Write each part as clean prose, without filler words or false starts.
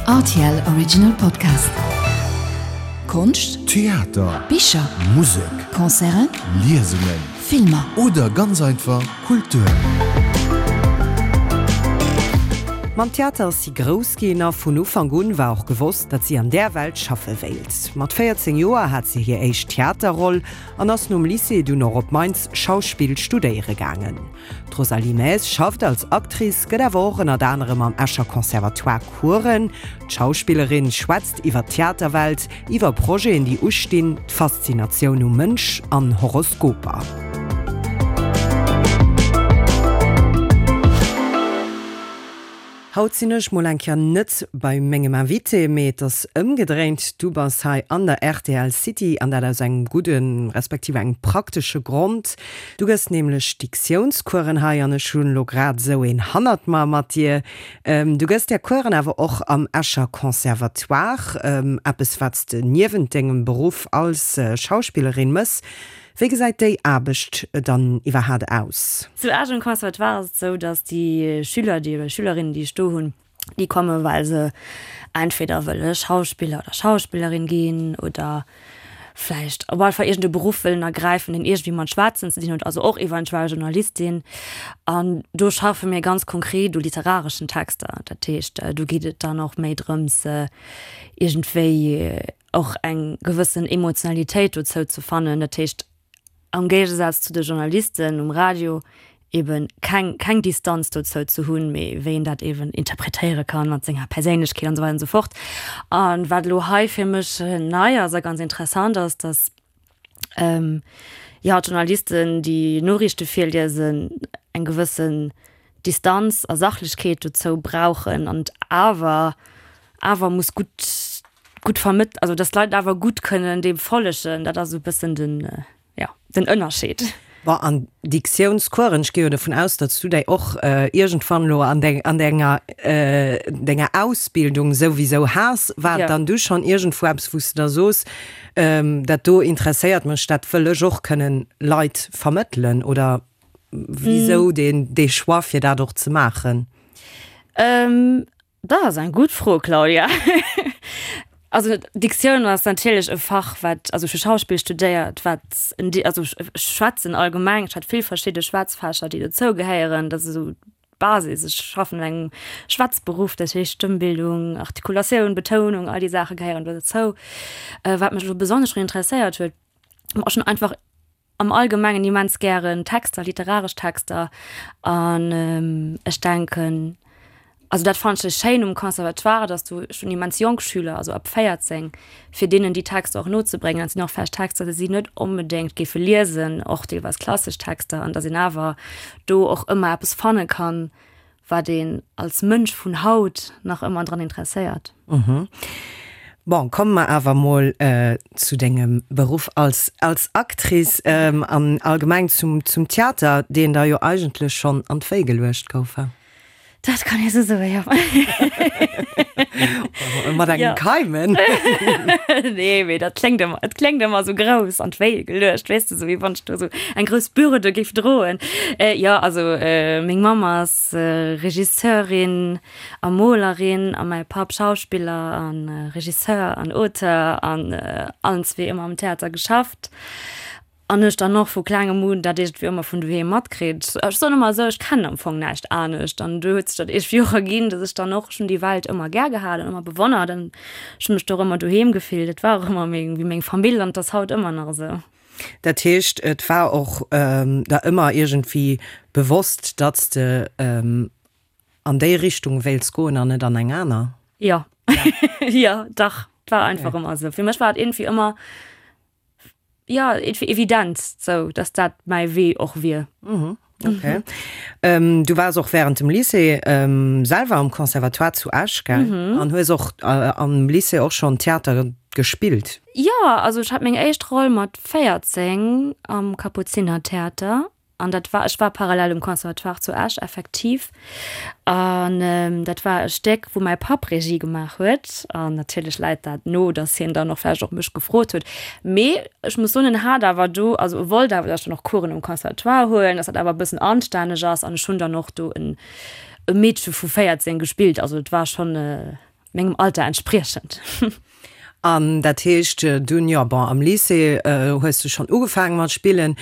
Rtl Original Podcast. Konscht, Theater, Bicher, Musek, Concerten, Liesungen Filmer. oder ganz einfach Kultur. Mam Theater ass si grouss ginn a vun Ufank un war och gewosst, datt si an där Welt schaffe wéilt. Mat 14 Joer hat si hir éischt Theaterroll an ass nom Lycée dunn och op Mainz Schauspill studéiere gaangen. D'Rosalie Maes schafft als Actrice, gëtt awer och ënnert anerem am Escher Conservatoire Coursen. D'Schauspillerin schwätzt iwwer d'Theaterwelt, iwwer Projeten, déi ustinn, d'Faszinatioun um Mënsch an Horoskoper. Haut sinn ech mol eng Kéier net bei mengem Invité, mee et ass ëmgedréint. Du bass hei an der rtl City an dat aus engem gudden, respektiv engem praktesche Grond. Du gëss nämlech Diktiounskueren hei an ech hunn elo grad esou een hannert mer mat dir. Du gëss där Kueren awer och am Escher Conservatoire, eppes wat s de niewent dengem Beruff als Schauspillerin mëss. Wéi gesäit déi Aarbecht dann iwwerhaat aus? Zu Esch um Conservatoire ass et esou, datt déi Schüler, déi oder Schülerinnen, déi ech do hunn, déi komme well se entweder wëlle Schauspiller oder Schauspillerin ginn oder vläicht op alle Fall iergend e Beruff wëllen ergräifen, deen iergendwéi mat Schwätzen ze dinn huet, also och eventuell Journalistin. An do schaffe mir ganz konkret u literareschen Texter. Dat heescht, do geet et dann och méi drëms, iergendwéi och eng gewëssen Emotionalitéit dozou ze fannen, dat heescht am Géigesaz zu de Journalisten um Radio eben keng keng Distanz dozou ze hunn, mee wéi een dat eben interpretéiere kann mat senger Perséinlechkeet an esou weider an esou fort. A wat elo hei fir mech nei ass a ganz interessant ass, datt jo d'Journalisten, déi Noriichte virliesen, eng gewëssen Distanz a Sachlechkeet dozou brauchen an et awer awer muss gutt gutt vermëtt, also dass d'Leit awer gutt kënnen deem follegen, dat ass esou e bëssen den, jo, den Ënnerscheed. Bon, an Diktiounscoursen, ech gi jo dovun aus, datt s du déi och iergendwann elo an deng, an denger, denger Ausbildung souwisou has, war et dann du schonn iergendwou eppes, wou s de da soos, dat do interesséiert mech, dat wëll ech och kënnen Leit vermëttelen, oder wisou deen, dee Choix fir dat och ze maachen? Dat ass eng gutt Fro, Claudia. Also Diktioun ass natierlech e Fach, wat, also ech hu Schauspill studéiert, wat en, also ech schwätzen allgemeng, ech hat vill verschidde Schwätzfächer, déi dozou gehéieren, dat ass esou d'Basis. Ech schaffen an engem Schwätzberuff, dat heescht Stëmmbildung, Artikulatioun, Betounung, all déi Saache gehéieren do dozou. Wat mech elo besonnesch drun interesséiert huet, war schon einfach am Allgemengen immens gären Texter, literaresch Texter an ech denken, also dat fannen ech schéin um Conservatoire, dass du schon immens jonk Schüler, also ab 14, fir deenen déi Texter och nozebréngen. Dat sinn och vläicht Texter, déi si net onbedéngt géife liesen, och deelweis klassesch Texter, an dass een awer do och ëmmer eppes fanne kann, wat een als Mënsch vun haut nach ëmmer dran interesséiert. Bon, komme mer awer mol zu dengem Beruff als als Actrice an allgemeng zum zum Theater, deen der jo eigentlech schonn an d'Wéi geluecht gouf, he? Dat kann ee sou soen, jo. Mat engem Keimen. Nee, mee dat kléngt ëmmer, et kléngt ëmmer sou grouss, an d'Wéi geluecht, weess de, sou wéi wann ech do sou eng grouss Bürde géif droen. Jo, also meng Mamm ass Regisseurin a Molerin a mäi Papp Schauspiller a Regisseur an Auteur an allen zwee ëmmer am Theater geschafft. An ech dann och vu klengem un dat iergendwéi ëmmer vun doheem matkritt. Ech soen ëmmer esou, ech kennen am Fong näischt anescht. An du huet sech dat iergendwéi och erginn, datt ech dann och, ech hunn déi Welt ëmmer gär gehat an ëmmer bewonnert an ech hunn mech do och ëmmer doheem gefillt. Et war och ëmmer meng, wéi meng Famill an et ass haut ëmmer nach esou. Dat heescht, et war och der ëmmer iergendwéi bewosst, datt s de an déi Richtung wéilts goen an net an eng aner? Jo, jo, dach, et war einfach ëmmer esou. Fir mech war et iergendwéi ëmmer ja evident sou dass dat mäi Wee och wier. Mhm. Okay. Mhm. Ähm, du wars och während dem Lycée ähm, selwer am Conservatoire zu Esch gell? Mhm. An hues och äh, am Lycée och schon Theater gespillt. Ja, also ech hat meng éischt Roll mat 14 am Kapuzinertheater. An dat war, ech war parallel um Conservatoire zu Esch effektiv. An dat war e Stéck, wou mäi Papp Regie gemaach huet. An natierlech läit dat no, datt hien dann och vläicht och mech gefrot huet. Mee ech muss soen, en hat awer do, also e wollt awer, datt ech dann och Coursen um Conservatoire huelen, datt dat awer e bëssen anstänneg ass. An ech hunn dann och do en e Meedche vu 14 gespillt. Also et war schonn. Mengem Alter entspriechend. An dat heescht dunn, jo bon, am Lycée hues du schonn ugefaange mat spillen.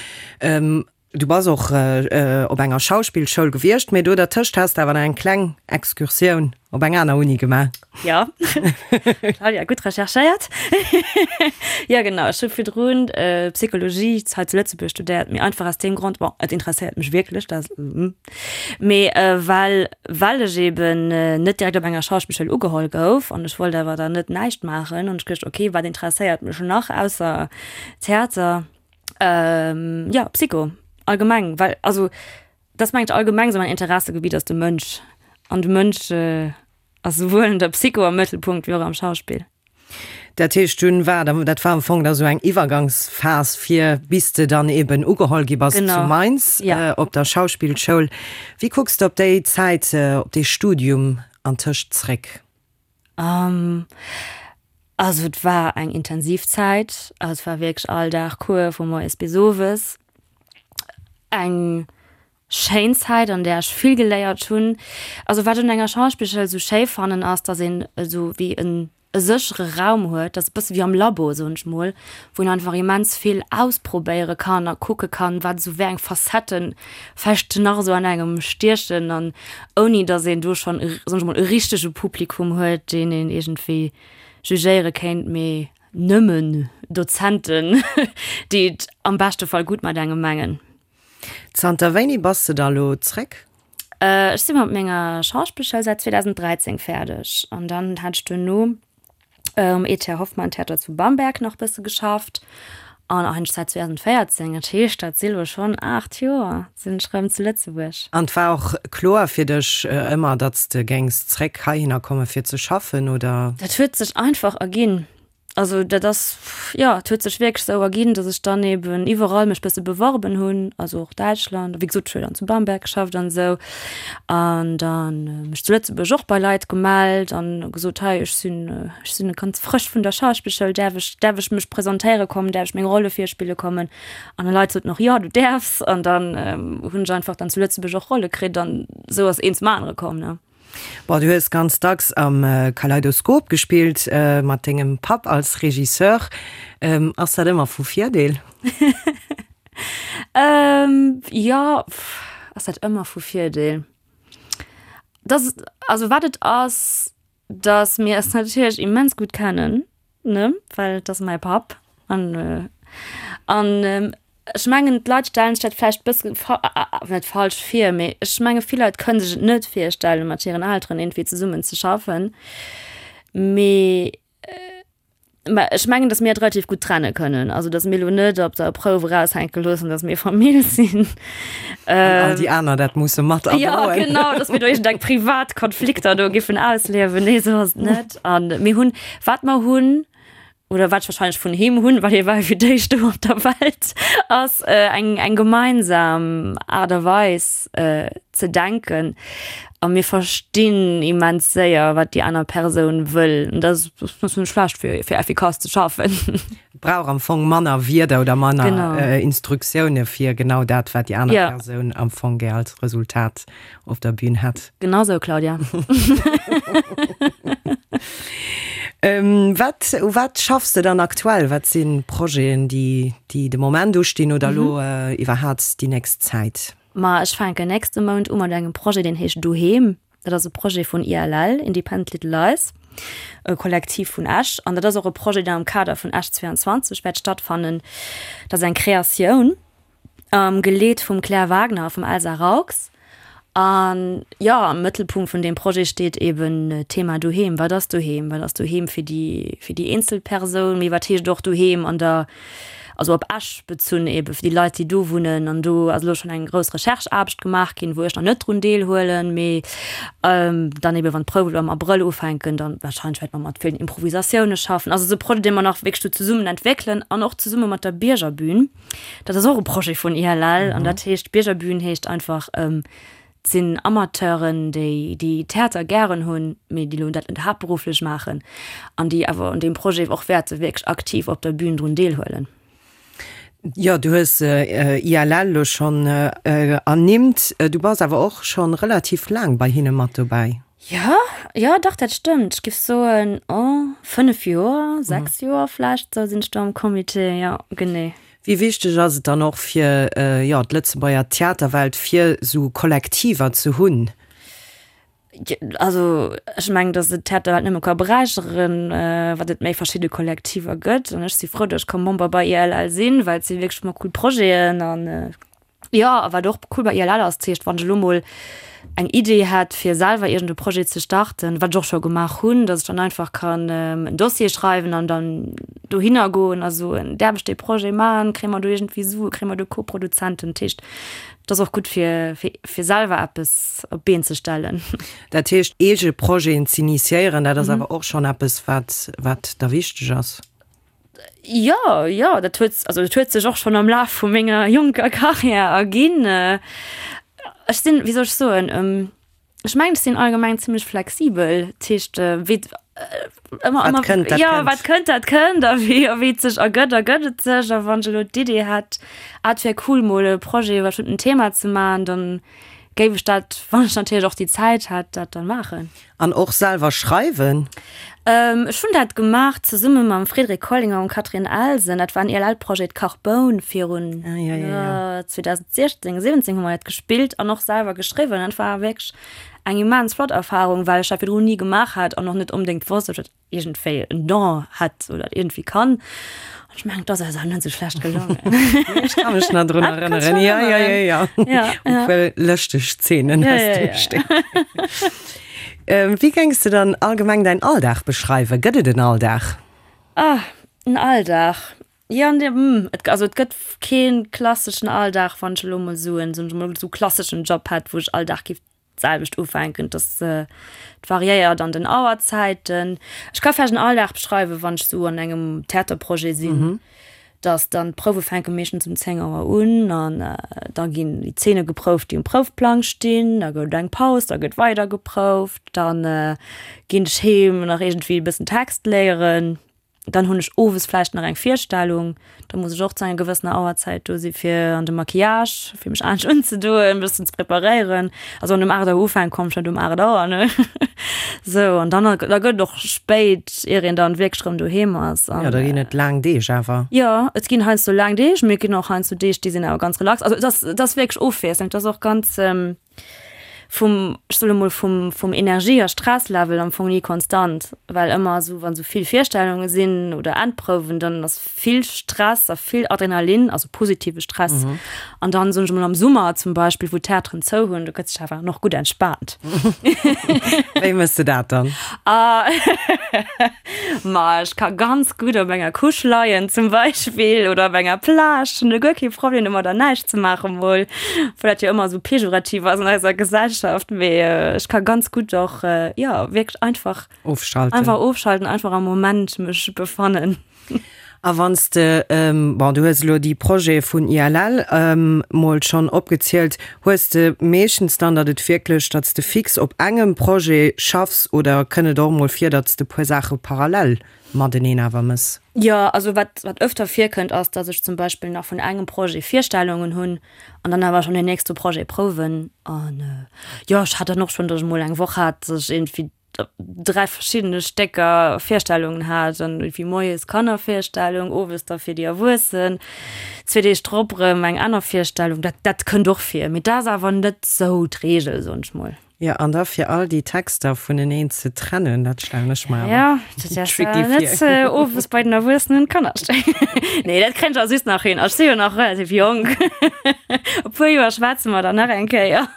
Du bass och op enger Schauspillschoul gewiescht, mee do dertëscht has de awer nach eng kleng Excursioun op eng aner Uni gemaach. Jo, Claudia, gutt recherchéiert. Jo genau, ech hu virdrun Psychologie hei zu Lëtzebuerg studéiert, mee einfach aus deem Grond, bon, et interesséiert mech wierklech, dat Mee well well ech eben net direkt op enger Schauspillschoul ugeholl gouf an ech wollt awer dann net näischt maachen, hunn ech geduecht, ok, wat interesséiert mech nach ausser Theater? Jo, Psycho allgemeng, well also dat ass mengen ech allgemeng esou mäin Interessegebitt ass de Mënsch an de Mënsch ass souwuel an der Psycho am Mëttelpunkt wéi och am Schauspill. Dat heescht dunn war da, dat war am Fong da sou eng Iwwergangsphas fir bis de dann eben ugeholl gi bass zu Mainz op der Schauspillschoul. Wéi kucks de op déi Zäit, op dee Studium antëscht zréck? Also et war eng intensiv Zäit, also et war wierklech all Dag Cours vu moies bis owes. Eng Schéin Zäit an där ech vill geléiert hunn. Also wat ech un enger Schauspillschoul esou schéi fannen ass, dass een esou wéi en e séchere Raum huet, dat ass e bësse wéi am Labo soen ech mol, wou een einfach immens vill ausprobéiere kann a kucke kann, wat esou wéi eng Facetten vläicht nach esou an engem stiechen an ouni dass een do schonn e soen ech mol e richtege Publikum huet, deen een iergendwéi jugéiere kéint, mee nëmmen Dozenten, déi et am beschte Fall gutt mat engem mengen. Zanter wéini bass de da lo zréck? Ech si mat menger Schauspillschoul säit 2013 fäerdeg an dann hat ech duerno um ETH Hoffmann Theater zu Bamberg nach bësse geschafft an eigentlech säit 2014, dat heescht dat si lo schonn 8 Joer, sinn ech rëm zu Lëtzebuerg. An et war och kloer fir dech ëmmer, datt s de géings zréck heihinner komme fir ze schaffen, oder? Dat huet sech einfach erginn. Also dat ass, jo, et huet sech wierklech esou erginn, datt ech dann eben iwwerall mech bësse beworben hunn, also och Däitschland, wéi gesot, ech hu jo dann zu Bamberg geschafft an esou. An dann mech zu Lëtzebuerg och bei Leit gemellt an gesot, hei ech sinn, ech sinn ganz frësch vun der Schauspillschoul, däerf ech, däerf ech mech presentéiere kommen, däerf ech meng Rolle virspille kommen? An déi Leit soten och, jo, du däerfs. An dann hunn ech einfach dann zu Lëtzebuerg och Rolle kritt an esou ass eent zum anere komm, ne. Bon, du hues ganz dacks am Kaleidoskop gespillt, mat dengem Papp als Regisseur. Ass dat ëmmer vu Virdeel? Jo, ass dat ëmmer vu Virdeel? Dat, also wat et ass, Dass mir eis natierlech immens gutt kennen, ne, well et ass mäi Papp. An, an ech mengen, d'Leit stellen sech dat vläicht bësse net falsch vir, mee ech menge vill Leit kënne sech et net virstellen, mat hiren Elteren iergendwéi zesummen ze schaffen. Mee Mä ech mengen, datt mir et relativ gutt trenne kënnen. Also datt mir elo net op der Prouf eraushänke loossen, datt mir Famill sinn. An all déi aner dat musse mat erdroen. Ja, genau, datt mir do iergendeng privat Konflikter do giffen ausliewen. Nee, esou ass et net. A mir hunn, wat mer hunn, oder wat ech wahrscheinlech vun him hunn, well hie war jo fir d'éischt do op der Welt, ass eng, eng gemeinsam Aart a Weis ze denken. A mir verstinn immens séier, wat déi aner Persoun wëll. An dat ass net schlecht, fir, fir effikass ze schaffen. Et brauch am Fong manner Wierder oder manner genau. Instruktioune fir genau dat, wat déi aner ja. Persoun am Fong gär als Resultat op der Bühn hätt. Genau sou, Claudia. ähm, wat, u wat schaffs de dann aktuell? Wat sinn Projeten, déi, déi de Moment ustinn oder mhm. lo äh, iwwerhaapt déi nächst Zäit? Ma ech fänken nächste Mount u mat engem Projet, deen heescht Doheem. Dat ass e Projet vun ILL, Independent Little Lies, e Kollektiv vun Esch. An dat ass och e Projet, deen am Kader vun Esch 22 wäert stattfannen. Dat ass eng Kreatioun, geleet vum Claire Wagner a vum Elsa Raux. An jo, am Mëttelpunkt vun deem Projet steet eben d'Thema Doheem. Wat ass Doheem? Wat ass Doheem fir déi, fir déi eenzel Persoun? Mee wat heescht och Doheem an der also op Esch bezunn ebe fir déi Leit, déi do wunnen. An do ass elo schonn eng grouss Recherche-Aarbecht gemaach ginn, wou ech nach net drun deelhuelen, mee dann ebe wann d'Prouwen elo am Abrëll ufänken, dann wahrscheinlech wäerte mer mat villen Improvisatioune schaffen. Also et ass e Projet, dee mer nach wierklech do zesummen entwéckelen an och zesumme mat der Biergerbühn. Dat ass och e Projet vun ILL an dat heescht, Biergerbühn heescht einfach, Et sinn Amateuren, déi déi Theater gären hunn, mee déi elo dat net haaptberufflech maachen an déi awer un deem Projet och wäerte wierklech aktiv op der Bühn drun deelhuelen. Jo, du hues ILL elo schonn ernimmt. Du bass awer och schonn relativ laang bei hinne mat dobäi. Jo, jo, dach, dat stëmmt. Ech géif soen, oh, 5 Joer, 6 Joer vläicht, esou sinn ech do am Comité, jo, genee. Wéi wichteg ass et dann och fir, jo, d'Lëtzebuerger Theaterwelt, fir esou Kollektiver ze hunn? Also ech mengen, datt et d'Theaterwelt nëmme ka beräicheren, wat et méi verschidde Kollektiver gëtt. An ech si frou, datt ech ka Member bei ILL sinn, well et si wierklech ëmmer cool Projeten an jo, a wat och cool bei ILL ass, dat heescht, wann ech elo mol eng Idee hätt, fir selwer iergend e Projet ze starten, wat ech och scho gemaach hunn, datt ech dann einfach kann en Dossier schreiwen an dann dohinner goen a soen, däerf ech dee Projet maachen, kréie mer do iergendwéi Sue, kréie mer do Koproduzenten? Dat heescht, Et ass och gutt fir fir selwer eppes op d'Been ze stellen. Dat heescht eege Projeten z'initiéieren, dat ass awer och schonn eppes wat wat der wichteg ass? Jo, jo, dat huet also dat huet sech och schonn am Laf vu menger jonker Karriär erginn. Ech sinn, wéi soll ech soen, Ech mengen, ech sinn allgemeng zimmlech flexibel. Dat heescht, wéi ëmmer, Wat kënnt, dat ja, kënnt. wat kënnt, dat kënnt. A wéi, a wéi et sech ergëtt, ergëtt et sech. A wann ech elo d'Idee hätt, ah, et wär cool, mol e Projet iwwer e bestëmmten Thema ze maachen, dann géif ech dat, wann ech natierlech och déi Zäit hätt, dat dann maachen. An och selwer schreiwen? Ech hunn dat gemaach zesumme mam Frédéric Collinger an Catherine Elsen. Dat war en ILL-Projet, Carboun, virun 2016, 17 hu mer dat gespillt an och selwer geschriwwen. Dat war wierklech eng immens flott Erfarung, well ech dat virdrun ni gemaach hat an och net onbedéngt wosst, ob ech dat iergendwéi en Don hätt oder dat iergendwéi kann. An ech mengen, et ass eis awer net esou schlecht gelongen. Ech ka mech nach drun erënneren. Ja, ja, ja, ja. Ja, ja. E puer lëschteg Zeenen Ja, aus ja, dem ja. Stéck. Wéi géings de dann allgemeng däin Alldag beschreiwen? Gëtt et en Alldag? Ah, en Alldag. Jo, an dem, et, also et gëtt kee klasseschen Alldag, wann ech elo mol soen, soen ech mol, esou klasseschen Job hätt, wou ech all Dag géif d'selwecht ufänken, dass et variéiert an den Auerzäiten. Ech ka vläicht en Alldag beschreiwen, wann ech sou an engem Theaterprojet sinn, dass dann d'Prouwe fänke meeschtens um 10 Auer un an da ginn déi Zeene geprouft, déi um Proufplang stinn, da gëtt et eng Paus, da gëtt weider geprouft, dann ginn ech heem nach iergendwéi e bëssen Text léieren. Dann hunn ech owes vläicht nach eng Virstellung, da muss ech och zu enger gewëssener Auerzäit do si fir an de Maquillage, fir mech anescht unzedoen, e bëssen ze preparéieren. Also wann um 8 Auer ufänkt, komm ech net um 8 Auer, ne? Sou, an dann, da gëtt et och spéit, ier een dann wierklech erëm doheem ass. An, jo, da ginn et laang Deeg awer. Jo, et ginn heiansdo laang Deeg, mee et ginn och heiansdo Deeg, déi sinn awer ganz relax. Also et ass, et ass wierklech ofwiesselnd, et ass och ganz, vum, ech soe mol, vum, vum Energie a Stresslevel am Fong ni konstant, well ëmmer esou, wann esou vill Virstellunge sinn oder Endprouwen, dann ass vill Stress a vill Adrenalin, also positive Stress. An dann, soen ech mol, am Summer zum Beispill, wou d'Theateren zou hunn, do gëtt sech awer nach gutt entspaant. Wéi méchs de dat dann? Ma ech ka ganz gutt op enger Couche leien zum Beispill oder op enger Plage, hunn do guer kee Problem domadder näischt ze maachen mol, obwuel dat jo ëmmer esou pejorativ ass an eiser Gesellschaft, mee ech ka ganz gutt och jo wierklech einfach Ofschalten. einfach ofschalten, einfach am Moment mech befannen. A wann s de, bon, du hues elo déi Projete vun ILL mol schonn opgezielt, hues de meeschtens dann, datt et wierklech, datt s de fix op engem Projet schaffs oder kënnt et och mol vir, datt s de puer Saache parallel mateneen awer mëss? Jo, also wat wat ëfter virkënnt ass, datt ech zum Beispill nach vun engem Projet Virstellungen hunn an dann awer schonn deen nächste Projet prouwen. An jo, ech hat dann och schonn, datt ech mol eng Woch hat, datt ech iergendwéi 3 verschiddene Stécker Virstellungen hat an wéi moies Kannervirstellung, owes da fir déi Erwuessen, zwee Deeg drop erëm eng aner Virstellung. Dat dat kënnt och vir, mee dat ass awer net sou d'Reegel, soen ech mol. Jo, an da fir all déi Texter vuneneen ze trennen, dat stellen ech mer awer Ja, dat ass tricky net vir. owes bei den Erwuessenen Kannerstéck. Nee, dat kréien ech awer just nach hin. Ech si jo nach relativ jonk. E puer Joer schwätze mer dann nach eng Kéier.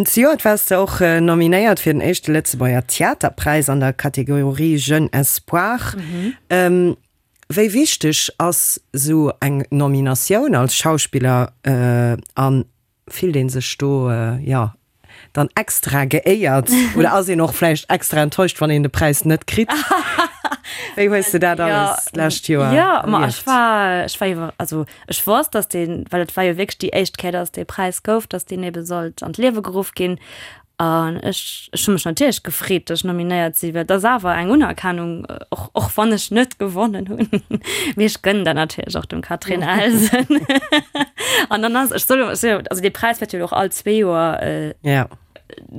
Zejoert waars de och nominéiert fir den éischte Lëtzebuerger Theaterpräis an der Kategorie Jeune Espoir. Wéi wichteg ass esou eng Nominatioun als Schauspiller a fillt ee sech do, jo, dann extra geéiert oder ass een och vläicht extra enttäuscht, wann een de Präis net kritt? Wéi hues de dat alles d'lescht Joer erlieft? Jo, ma ech war, ech war iwwer, also Ech wosst, dass deen, well et war jo wierklech déi éischt Kéier, dass dee Präis gouf, dass deen ebe sollt an d'Liewe geruff ginn. An ech, ech hu mech natierlech gefreet, dass ech nominéiert sinn, well et ass awer eng Unerkennung, och, och wann ech net gewonnen hunn. Mee ech gënnen dat natierlech och dem Catherine Elsen. An dann ass, ech soll, also dee Präis wäert jo och all zwee Joer Ja.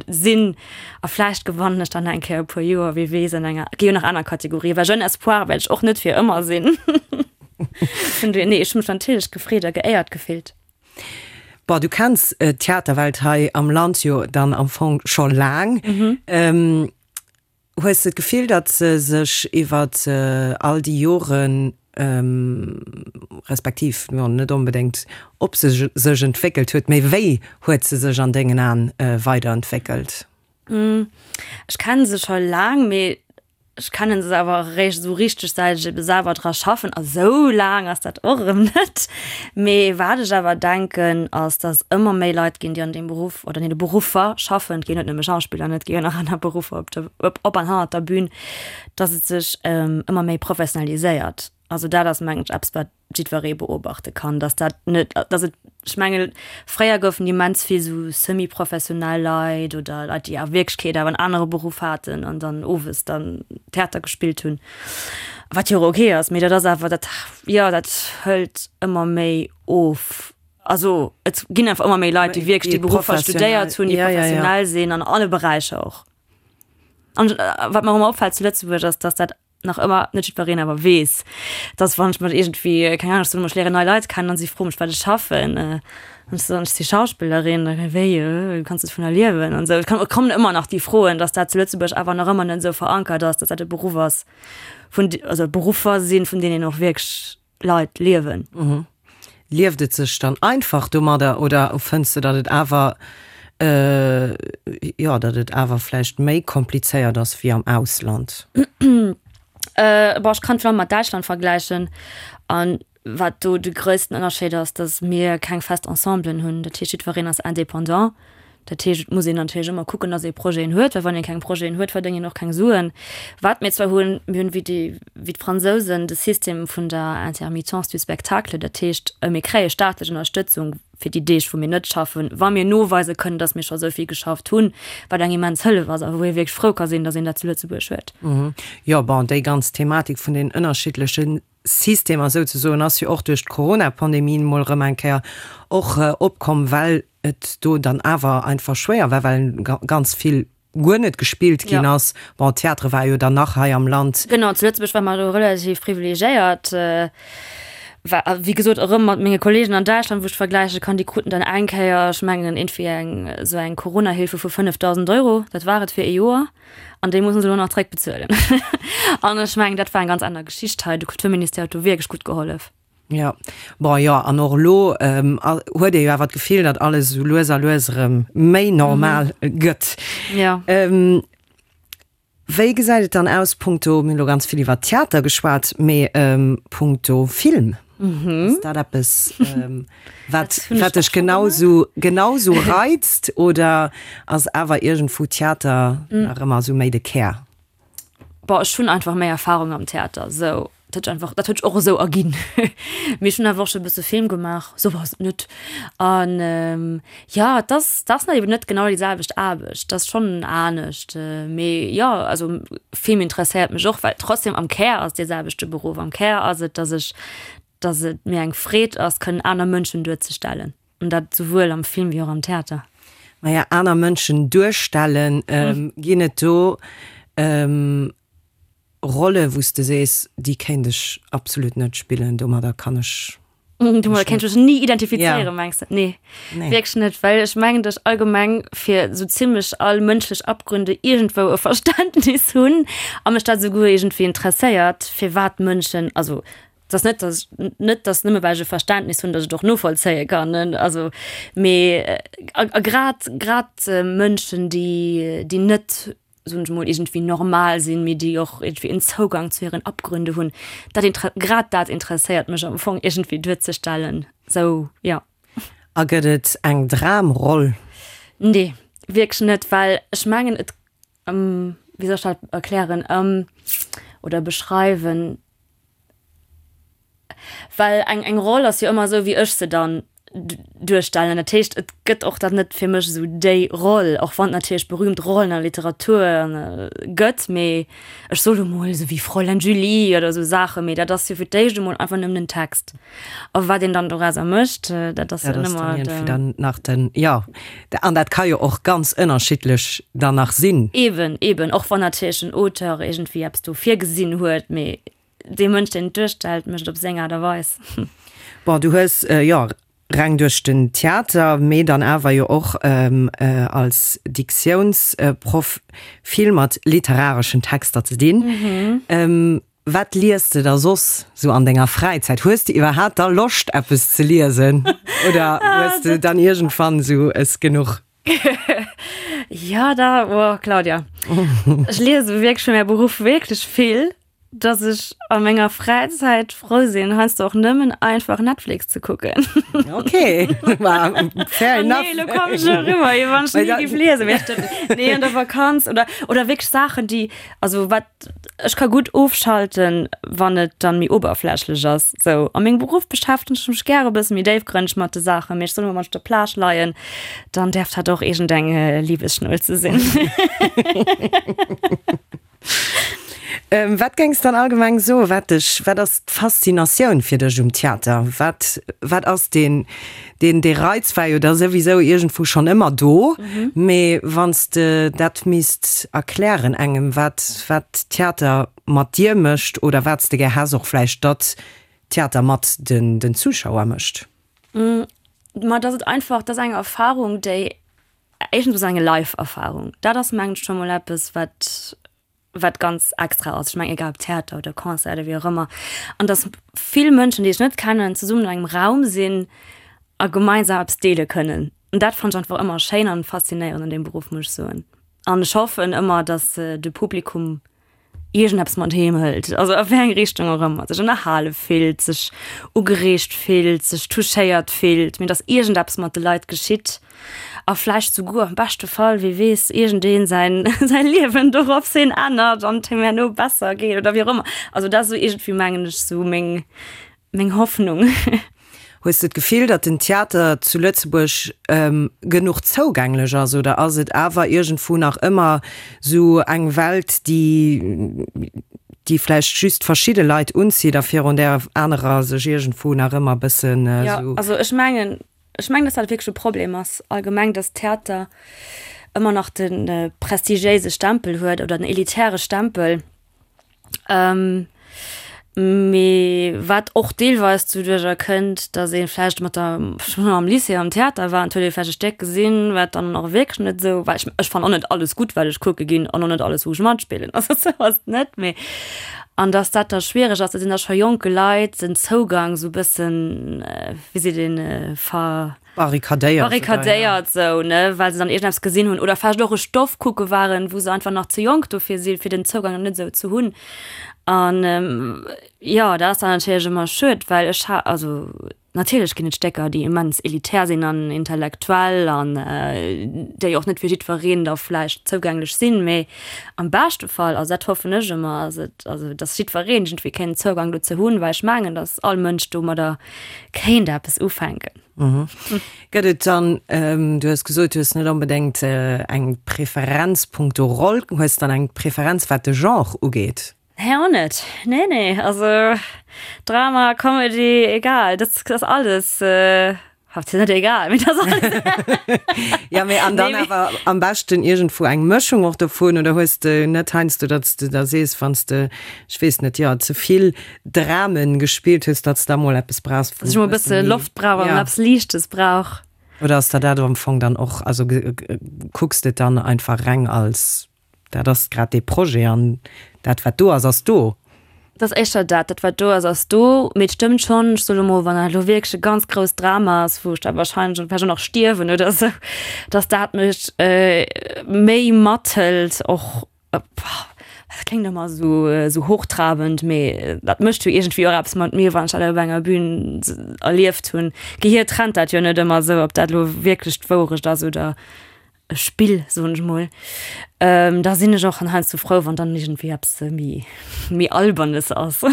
Sinn a vläicht gewannen ech dann eng Kéier e puer Joer, wie weess, an enger, gi jo nach aner Kategorien, well Jeune Espoir wäert ech och net fir ëmmer sinn. Vun dohier, nee, ech hu mech natierlech gefreet a geéiert gefillt. Bon, du kenns d'Theaterwelt hei am Land jo dann am Fong scho laang. Hues de d'Gefill, datt se sech iwwer all déi Joren, respektiv, jo, net onbedéngt ob se sech entwéckelt huet, mee wéi huet se sech an dengen Aen weiderentwéckelt? Ech kenne se scho laang, mee ech kenne se awer eréischt esou richteg, säit ech ebe selwer dra schaffen. A sou laang ass dat och erëm net. Mee wat ech awer denken, ass, datt ëmmer méi Leit ginn, déi an deem Beruff oder an deene Beruffer schaffen, et ginn net nëmme Schauspiller, et gi jo nach aner Beruffer op der, op an hannert der Bün, datt et sech ëmmer méi professionaliséiert. Also dat ass, mengen ech, eppes, wat jiddweree beobachte kann, datt dat net, datt et, ech mengen, fréier goufen immens vill esou semi-professionell Leit oder Leit, déi a Wierklechkeet awer en anere Beruff haten an dann owes dann Theater gespillt hunn, wat jo och ok ass, mee dat ass awer, dat, jo, dat hëlt ëmmer méi of. Also et ginn einfach ëmmer méi Leit, déi wierklech déi Beruffer studéiert hunn, déi professionell sinn an alle Beräicher och. An wat mer ëmmer opfält zu Lëtzebuerg ass, datt dat nach ëmmer net jiddwereen awer weess, dass wann ech mat iergendwéi, keng Ahnung, ech soen ëmmer, ech léieren nei Leit kennen an si froe mech, wat ech schaffen, an ech soen, ech si Schauspillerin, da wéi, du kanns dovunner liewen an esou. Et kommen ëmmer nach déi Froen, dass dat zu Lëtzebuerg awer nach ëmmer net esou verankert ass, dass dat e Beruff ass vun, also Beruffer sinn, vun deenen och wierklech Leit liewen. Lieft et sech dann einfach domadder oder fënns de, datt et awer, jo, datt et awer vläicht méi komplizéiert ass wéi am Ausland? Bon, ech kann et vor allem mat Däitschland vergläichen an wat do de gréissten Ënnerscheed ass, datt mir keng fest Ensemblen hunn. Dat heescht, jiddwereen ass indépendant. Dat heescht, et muss een natierlech ëmmer kucken, datt ee Projeten huet, well wann ee keng Projeten huet, verdéngt een och keng Suen. Wat mir zwar hunn, mir hunn wéi déi, wéi d'Fransousen de System vun der Intermittence du spectacle, dat heescht, mir kréie staatlech Ënnerstëtzung fir déi Deeg, wou mir net schaffen, wa mir noweise kënnen, datt mir scho esou vill geschafft hunn, wat eng immens Hëllef ass a wou ee wierklech frou ka sinn, datt een dat zu Lëtzebuerg huet. Jo, bon, déi ganz Thematik vun den ënnerschiddleche Systemer souzesoen ass jo och duerch d'Corona-Pandemie emol erëm eng Kéier och opkomm, well et do dann awer einfach schwéier war, well ganz vill guer net gespillt ginn ass. Bon, Theatre war jo dann nach hei am Land. Genau, zu Lëtzebuerg ware mer do relativ privilegiéiert. War, wéi gesot, erëm mat menge Kollegen an Däitschland, wou ech vergläiche kann, déi kruten dann eng Kéier, ech mengen, iergendwéi eng esou eng Corona-Hilfe vu 5.000 Euro, dat war et fir ee Joer. An déi mussen se elo nach zréckbezuelen. An ech mengen, dat war eng ganz aner Geschicht hei. De Kulturministère huet do wierklech gutt gehollef. Jo, bon, jo, an och elo huet ee jo awer d'Gefill, datt alles esou lues a lues erëm méi normal gëtt. Jo. Wéi gesäit et dann aus punkto, mir hunn elo ganz vill iwwer Theater geschwat, mee punkto Film? Ass dat eppes, wat, wat dech genau sou, genau sou reizt oder ass awer iergendwou Theater nach ëmmer sou méi de Kär? Boah, ech hunn einfach méi Erfahrung am Theater, sou. Dat huet sech einfach, dat huet sech och esou erginn. Mee ech hunn awer och scho e bësse Film gemaach, sou ass et net. An jo, et ass, et ass eben net genau déi selwecht Aarbecht, et ass schonn anescht. Mee jo, also Film interesséiert mech och, well trotzdem am Kär ass dee selwechte Beruff. Am Kär ass et, dass ech, dass et mir eng Freed ass, kënnen aner Mënschen duerzestellen. An dat souwuel am Film wéi och am Theater. Maja, aner Mënschen duerstellen, ginn et do Rolle wou s de sees, déi kéint ech absolut net spillen, domadder kann ech Domadder kéint ech mech ni identifizéieren, mengs de? Nee, wierklech net, well ech mengen, datt ech allgemeng fir esou zimmlech all mënschlech Abgründe iergendwou e Verständnis hunn a mech dat esouguer iergendwéi interesséiert, firwat Mënschen, also et ass net, datt ech, net datt nëmme well ech e Verständnis hunn, datt ech et och novollzéie kann, also mee a grad grad Mënschen, déi déi net soen ech mol, iergendwéi normal sinn, mee déi och iergendwéi en Zougang zu hiren Abgründe hunn, dat inter grad dat interesséiert mech am Fong iergendwéi duerzestellen, sou, jo. A gëtt et eng Dramroll? Nee, wierklech net, well ech mengen et, wéi soll ech dat erklären oder beschreiwen? Well eng eng Roll ass jo ëmmer esou, wéi ech se dann. Duerstellen. Dat heescht, et gëtt och dann net fir mech esou déi Roll, och wann et natierlech berühmt Rollen an der Literatur gëtt, mee ech soe lo mol esou wéi Fräulein Julie oder esou Saachen, mee dat ass jo fir d'éischt emol einfach nëmmen en Text. A wat een dann dorauser mécht, dat ass jo dann ëmmer de. Dann nach den, jo, an dat ka jo och ganz ënnerschiddlech dann nach sinn. Eben, eben, och wann natierlech den Auteur iergendwéi eppes do virgesinn huet, mee Dee Mënsch, deen et duerstellt, mécht et op seng Aart a Weis. Bon, du hues, jo, reng duerch den Theater, mee dann awer jo och als Diktiounsproff vill mat literareschen Texter ze dinn. Wat liest de da soss sou an denger Fräizäit? Hues de iwwerhaapt da Loscht, eppes ze liesen oder hues de dann iergendwann sou es genuch? Jo, da, oh Claudia, ech liese wierklech fir mäi Beruff wierklech vill. dass ech a menger Fräizäit frou sinn, heiansdo och nëmmen einfach Netflix ze kucken. Okay, fair enough. Nee, lo komm ech eriwwer, wéi wann ech ni géif liesen. Mee ech, nee, an der Vakanz oder, oder wierklech Saachen, déi, also wat, ech ka gutt ofschalten, wann et dann méi oberflächlech ass. Sou, a mengem Beruff beschäftegen ech mech gäre e bësse méi déifgrënneg mat de Saachen, mee ech soll emol, wann ech op der Plage leien, dann däerf dat och iergendeng Liebesschnulze sinn. Wat géings dann allgemeng soen, wat dech, wat ass d'Faszinatioun fir dech um Theater? Wat, wat ass deen, deen, dee Reiz war jo da souwisou iergendwou schonn ëmmer do, mee wann s de dat misst erklären engem, wat, wat Theater mat dir mécht oder wat s de gär häss och vläicht, datt Theater mat den, den Zuschauer mécht? Ma dass et einfach, dat ass eng Erfahrung, déi Éischtens ass eng Live-Erfarung, dat ass mengen ech scho mol eppes wat wat ganz extra ass. Ech mengen egal ob Theater oder Concert oder wéi och ëmmer. An datt vill Mënschen, déi ech net kennen, zesummen an engem Raum sinn a gemeinsam eppes deele kënnen. An dat fannen ech einfach ëmmer schéin an faszinéierend an deem Beruff, muss ech soen. An ech hoffen ëmmer, datt de Publikum iergendeppes mat heem hëlt, also a wéi eng Richtung och ëmmer, sech ënnerhale fillt, sech ugereegt fillt, sech touchéiert fillt, mee dass iergendeppes mat de Leit geschitt a vläicht souguer am beschte Fall, wie weess, iergendeen säin säi Liewen dorops hin ännert an et him herno besser geet oder wéi och ëmmer. Also dat ass esou iergendwéi, mengen ech, esou meng Meng Hoffnung. Hues de d'Gefill, datt den Theater zu Lëtzebuerg genuch zougänglech ass oder ass et awer iergendwou nach ëmmer sou eng Welt, déi déi vläicht just verschidde Leit unzitt a virun där anerer sech iergendwou nach ëmmer e bëssen sou. Jo, also ech mengen, ech mengen, datt dat wierklech e Problem ass allgemeng, datt Theater ëmmer nach de prestigiéise Stempel huet oder den elitäre Stempel. Mee wat och deelweis doduerjer kënnt, datt ee vläicht mat der, schonn am Lycée am Theater war an et huet ee vläicht e Stéck gesinn, wat dann och wierklech net esou war. Ech, ech fannen och net alles gutt, wat ech kucke ginn an och net alles, wou ech matspillen, also esou ass et net. Mee an datt dat da schwiereg ass, datt een da scho jonke Leit den Zougang esou e bëssen, wéi seet een, ver. Barrikadéiert. Barrikadéiert sou, ne, well se dann iergendeppes gesinn hunn oder vläicht och e Stoff kucke waren, wou se einfach nach ze jonk dofir sinn, fir den Zougang nach net esou ze hunn. An jo, dat ass dann natierlech ëmmer schued, well ech ha, also natierlech ginn et Stécker, déi immens elitär sinn an intellektuell an déi och net fir jiddwereen da vläicht zougänglech sinn, mee am beschte Fall, also dat hoffen ech ëmmer, ass et, also datt jiddwereen iergendwéi kéint Zougang dozou hunn, well ech mengen, datt all Mënsch domadder kéint eppes ufänken. Gëtt et dann, du hues gesot, du hues net onbedéngt eng Preferenz punkto Roll, hues dann eng Preferenz wat de Genre ugeet? Nee, och net. Nee, nee, also Drama, Comedy, egal, dat ass alles, hatt net egal, mee dat ass alles. Ja, mee an dann awer am beschten iergendwou eng Mëschung och dovun, oder hues de net heiansdo, datt s de da sees, wann s de, ech weess net, jo, ze vill Dramen gespillt hues, datt s da mol eppes brauchs, wou. Dass ech mol e bësse Loft brauch an eppes Liichtes brauch. Oder ass der dat am Fong dann och, also kucks de et dann einfach reng als, dat ass grad dee Projet an dat wat do ass, ass do? Et ass éischter dat, dat wat do ass, ass do. Mee et stëmmt schonn, ech soe lo mol, wann dat elo wierklech e ganz grousst Drama ass, wou ech da wahrscheinlech vläicht och nach stierwen oder esou, dass dat mech méi mathëlt och. Dat kléngt ëmmer esou esou hochtrabend, mee dat mécht jo iergendwéi och eppes mat mir, wann ech dat op enger Bühn erlieft hunn. D'Gehier trennt dat jo net ëmmer esou, ob dat elo wierklech d'Wourecht ass oder e Spill, soen ech mol. Da sinn ech och heiansdo frou, wann dann iergendwéi eppes méi méi Albernes ass.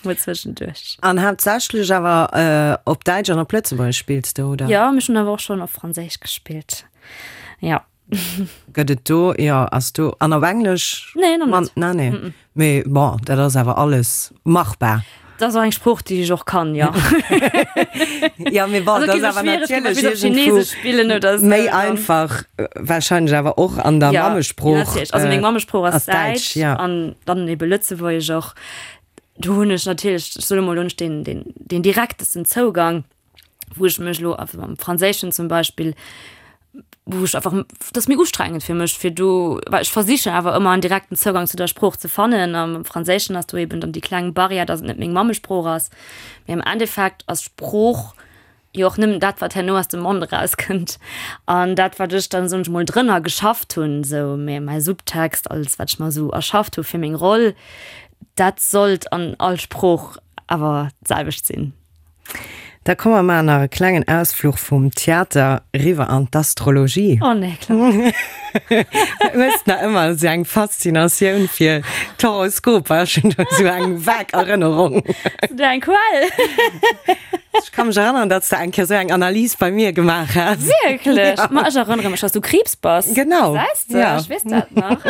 Mol zwëschenduerch. An haaptsächlech awer op Däitsch an op Lëtzebuergesch spills de, oder? Jo, mee ech hunn awer och schonn op Franséisch gespillt, jo. Gëtt et do, jo, ass do, an op Englesch? Nee, nach net. Nee, nee. Mee bon, dat ass awer alles machbar. Dat ass och eng Sprooch, déi ech och kann, jo. Jo, mee bon, dat ass awer natierlech iergendwou méi einfach warscheinlech awer och an der Mammesprooch. Jo, natierlech. Also meng Mammesprooch ass Däitsch an dann ebe Lëtzebuergesch och. Do hunn ech natierlech, ech soe mol, do hunn ech deen, deen, deen direktesten Zougang, wou ech mech elo einfach am Franséischen zum Beispill, wou ech einfach, dat ass méi ustrengend fir mech, fir do, well ech versichen awer ëmmer en direkten Zougang zu der Sprooch ze fannen. Am Franséischen ass do eben dann déi kleng Barrière, datt et net meng Mammesprooch ass. Mee am Endeffekt ass Sprooch jo och nëmmen dat, wat herno aus dem Mond erauskënnt. An dat, wat ech dann, soen ech mol, drënner geschafft hunn, esou mä mäi Subtext, alles, wat ech mer esou erschafft hu fir meng Roll, dat sollt an all Sprooch awer d'selwecht sinn. Da komme mer maachen nach e klengen Ausfluch vum Theater riwwer an d'Astrologie. Oh nee, Claudia. Du hues nach ëmmer esou eng Faszinatioun fir d'Horoskoper. Ech hunn do esou eng vag Erënnerung. Hues du eng Quell? Ech ka mech erënneren, datt s de eng Kéier esou eng Analys bei mir gemaach has. Wierklech? Ma ech erënnere mech, datt s du Kriibs bass. Genau. Gesäis de? Ja. Ech weess dat nach.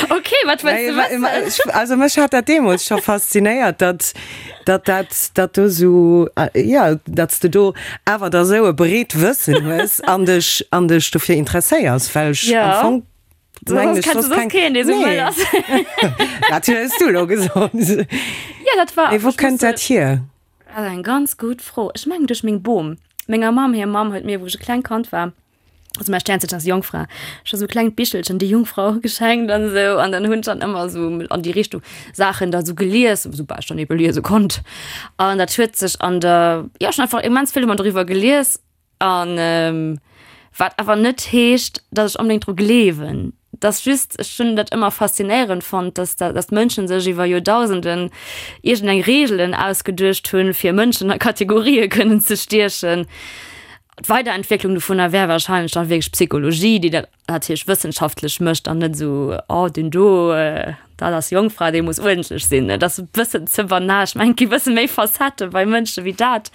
Okay, wat wëlls de wëssen? Also mech hat dat deemools scho faszinéiert, datt, datt dat, datt do esou, jo, datt s de do awer da sou e breet Wëssen hues an dech, an dech dofir interesséiers, well ech am Fong mengen ech soss keng. Keen, dee sou wëll ass. Dat hues du elo gesot. Jo, dat war. Mee wou kënnt dat hier? Dat ass eng ganz gutt Fro. Ech mengen duerch meng Bom. Menger Mamm hir Mamm huet mir, wou ech e klengt Kand war, also mäi Sternzeechen ass Jongfra, scho sou klengt Bichelchen, déi Jungfrau geschenkt an esou. An dann hunn ech dann ëmmer esou an déi Richtung Saachen da sou gelies, soubal ech dann ebe liese konnt. An dat huet sech an der, jo, ech hunn einfach immens vill ëmmer doriwwer gelies. An wat awer net heescht, datt ech onbedéngt dru gleewen. Et ass just, ech hunn dat ëmmer faszinéierend fonnt, datt da, datt d'Mënschen sech iwwer Joerdausenden iergendeng Reegelen ausgeduecht hunn, fir Mënschen a Kategorië kënnen ze stiechen. D'Weiderentwécklung dovunner wär warscheinlech dann wierklech Psychologie, déi dat natierlech wëssenschaftlech mécht an net esou, oh deen do, dat ass Jongfra, dee muss uerdentlech sinn. Dat ass e bëssen ze banal. Ech mengen, et gi e bësse méi Facettë bei Mënsche wéi dat.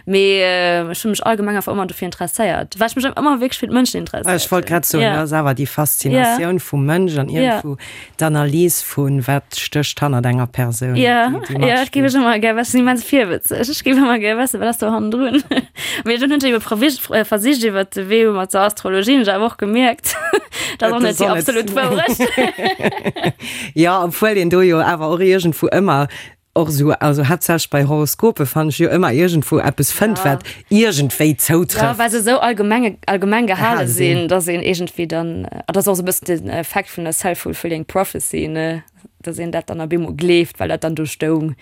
Mee ech hu mech allgemeng einfach ëmmer dofir interesséiert, well ech mech ëmmer wierklech fir d'Mënschen interesséiert hunn. Ech wollt grad soen, dat ass awer déi Faszinatioun vum Mënsch an iergendwou D'Analys vun wat stécht hannert enger Persoun. Ja, ja, ech géif ech ëmmer gär wëssen, immens virwëtzeg. Ech géif ëmmer gär wëssen, wat ass do hannendrun. Mee dunn hunn ech ebe provis versicht iwwert de Wee mat der Astrologie, hunn ech awer och gemierkt, dat ass och net déi absolut Wourecht. Jo, obwuel een do jo awer och iergendwou ëmmer Och esou, also haaptsächlech bei Horoskope fannen ech jo ëmmer iergendwou eppes fënnt, wat iergendwéi zoutrëfft. Jo, well se esou allgemeng, allgemeng gehale sinn, dass een iergendwéi dann, an dat ass och esou e bëssen den Effekt vun der self-fulfilling prophecy, ne, dass een dat dann op eemol gleeft, well dat dann do stoung.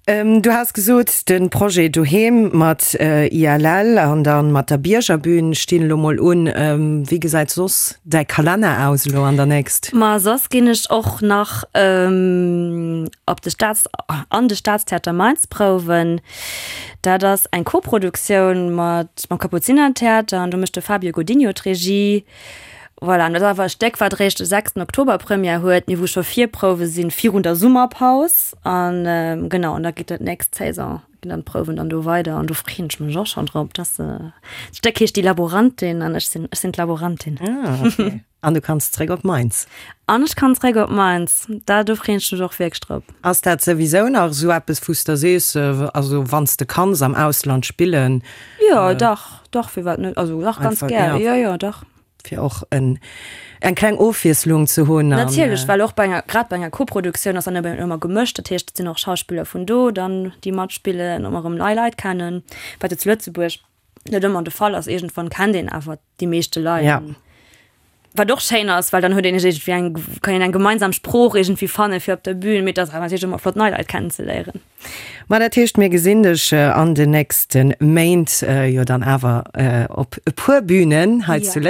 Du has gesot, de Projet Doheem mat ILL an dann mat der Biergerbühn stinn elo mol un. Wéi gesäit soss däi Kalenner aus elo an der nächst? Ma soss ginn ech och nach op de Staats, an de Staatstheater Mainz prouwen. Dat ass eng Koproduktioun mat mam Kapuzinertheater an do mécht de Fabio Godinho d'Regie. Voilà, an dat ass awer e Stéck, wat eréischt de sechsten Oktober Première huet, mee wou scho Virprouwe sinn virun der Summerpaus. An genau, an da geet dat nächst Saison, ginn dann d'Prouwen dann do weider an do freeën ech mech och schonn drop. Dat Stéck heescht Die Laborantin an ech sinn, ech sinn d'Laborantin. Ah, okay. An du kanns zréck op Mainz. An ech kann zréck op Mainz, dat, do freeën ech mech och wierklech drop. Ass dat souwisou nach esou eppes, wou s de sees, also wann s de kanns am Ausland spillen? Jo, dach, dach, firwat net? Also dach, ganz gär, jo, jo, dach. Fir och en, eng kleng Ofwiesslung ze hunn. Natierlech, well och bei enger, grad bei enger Koproduktioun ass dann eben ëmmer gemëscht. Dat heescht, et sinn och Schauspiller vun do dann, déi matspillen, ëmmer erëm nei Leit kennen, wat jo zu Lëtzebuerg net ëmmer de Fall ass. Iergendwann kennt een awer déi meeschte Leit. Ja. Wat och schéin ass, well dann huet een iergendwéi eng, kann een eng gemeinsam Sprooch iergendwéi fanne fir op der Bühn. Mee et ass awer natierlech ëmmer flott, nei Leit kennenzeléieren. Ma dat heescht, mir gesinn dech an den nächste Méint jo dann awer op e puer Bünen hei zu